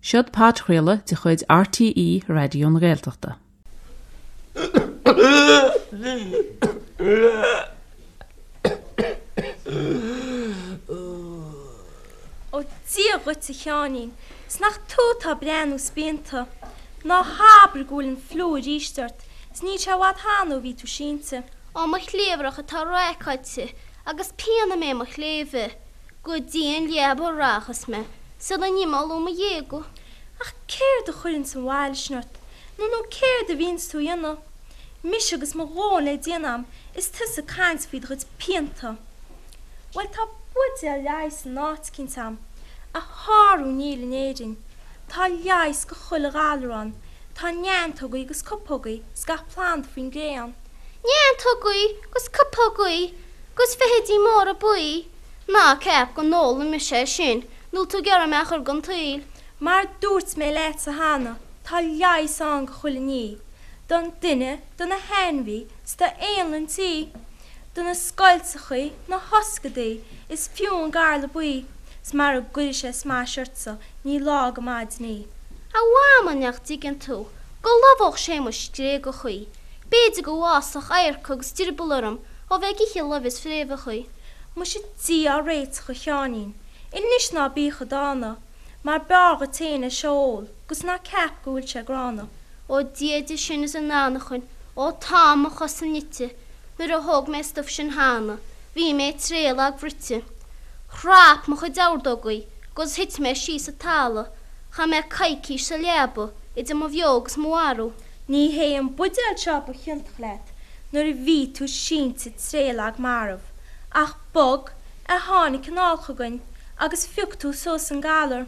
Seod podchraoladh de chuid RTÉ Raidió na Gaeltachta. Ó Dia dhuit a Sheáinín, 's nach tú atá ag breathnú spíonta. Ná habair go bhfuil an fliú aríst ort, 's níl sé i bhfad cheana ó bhí tú sínte. Ó mo chliabhrach atá raiceáilte agus pian i mbéal mo chléibhe. Go dtí an leaba a rachas mé sula n-imeoidh mo ghéaga. Ach céard a chuireanns an bhail sin ort, nó nó céard a bhíonns tú a dhéanamh? Mise agus mo dhóthain le déanamh a'm is tusa ag caint faoi do chuid pianta. Bhuel tá buidéal leighis in áit eicínt a'm, a shárú níl in Éirinn. Tá leigheas go chuile ghalar ann, tá neantógaí agus cupógaí 's gach planda faoin gcré ann. Neantógaí 'gus cupógaí 'gus feithidí móra buí, ná ceap go n-ólfaidh mise é sin nó tú ag iarraidh mé a chur den tsaol. Mar a dúirt mé leatsa cheana, tá leigheas ann go chuile ní, don duine, do na hainmhí, 's do éanlaith an tí, do na scoilteachaí, na hoscadaí, is fiú an garla buí, 's mara gcuire sé smais ortsa, ní lá go maidin í. A Mhama, nach dtuigeann tú go lobhódh sé mo scréagachaí, B'fhéidir go bhfásfadh adharca agus drioball orm ó bheith ag ithe luibh is fréamhachaí. Muise Dia ár réiteach a Sheáinín, anois ná bí chomh dána, mar b'fhearr dhuit fhéin é seo a ól, 'gus ná ceap go bhfuil sé gránna. Ó Dia de sin is an anachain, ó tá mo chosa nite, nuair a thóg mé stuif sin cheana, bhí mé tréith lag bhruite. Chrap mo chuid ordógaí 'gus thit mé síos sa talamh, chaith mé coicís sa leaba idir mo bheo agus mo mharbh. Ní hé an buidéal seo ba chiontach leat nuair a bhí tú sínte tréith lag marbh, ach bug a tháinig anall chugainn agus phioc tú suas an galar.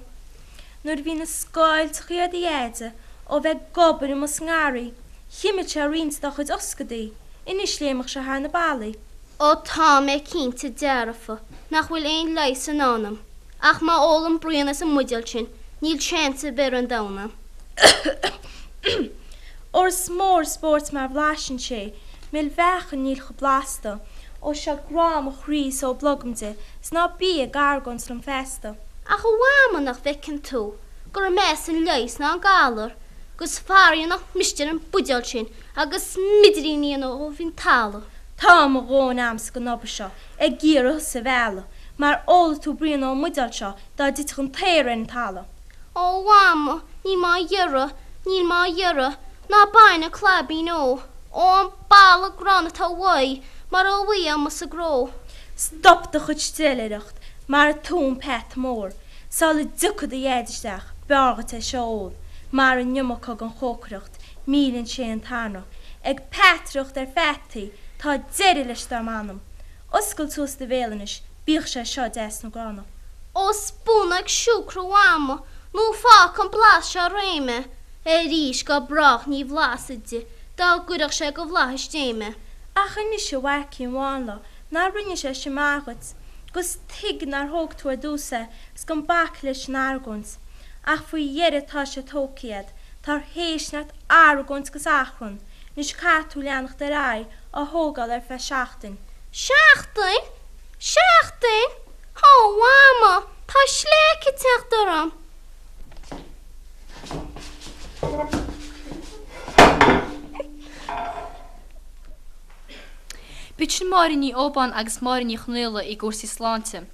Nuair a bhí na scoilteachaí ar do dheaide ó bheith ag obair amuigh sa ngarraí, chimil sé roinnt dá chuid oscadaí, anois léimfeadh sé thar na ballaí. Ó tá mé cinnte dearfa nach bhfuil aon leigheas i ndán dom, ach má ólaim braon as an mbuidéal sin níl seans ar bith ar an domhan a'm. Óir is mór an spórt mar bhlaiseann sé, mil mheáchan níl chomh blasta, ó seo grá mo chroí is ó blogam de, 's ná bí ag argóint liom feasta. Ach a Mhama nach bhfeiceann tú gur measa an leigheas ná an galar, 'gus faraor nach miste ar an buidéal sin agus smidirín a dhéanamh ó bhinn talamh. Tá mo dhóthain a'msa den obair seo ag iarraidh thusa a mhealladh, mar ólfaidh tú braon ón mbuidéal seo dá dtitfeadh an t-aer ar an talamh. Ó a Mhama, níl mé á iarraidh, níl mé á iarraidh, ná bain an claibín ó, ó an boladh gránna atá uaidh, mar ó bhí amuigh sa gcró. Stop do chuid steillaireacht mar a tú an peata mór, sula dtiocfaidh do dhaid isteach, b'fhearr dhuit é seo a ól, mar an iomarca den chócaireacht, milleann sé an t-anraith. Ag peataireacht ar pheataí, tá deireadh leis dar m'anam. Oscail suas do bhéal anois, bíodh sé seo deas nó gránna. Ó spúnóg siúcra a Mhama nó fágfaidh an blas seo réidh mé arís go brách ní bhlasfad de dá gcuirfeadh sé go bhflaithis Dé mé. Ach anois a mhaicín mhánla ná rinne sé sin maith dhuit, 'gus tuig nár thóg tú ar dtús é 's gan bac leis an argóint. Ach faoi dheireadh tá sé tógtha a'd, táthar théis neart argóint 'gus achrann, anois caithfidh tú leanacht ar aghaidh á thógáil ar feadh seachtain. Seachtain? Seachtain? Ó, a Mhama, tá sleaic ag teacht orm! B'iad sin Máire Ní Óbáin agus Máire Ní Chonaola i gcúrsaí sláinte.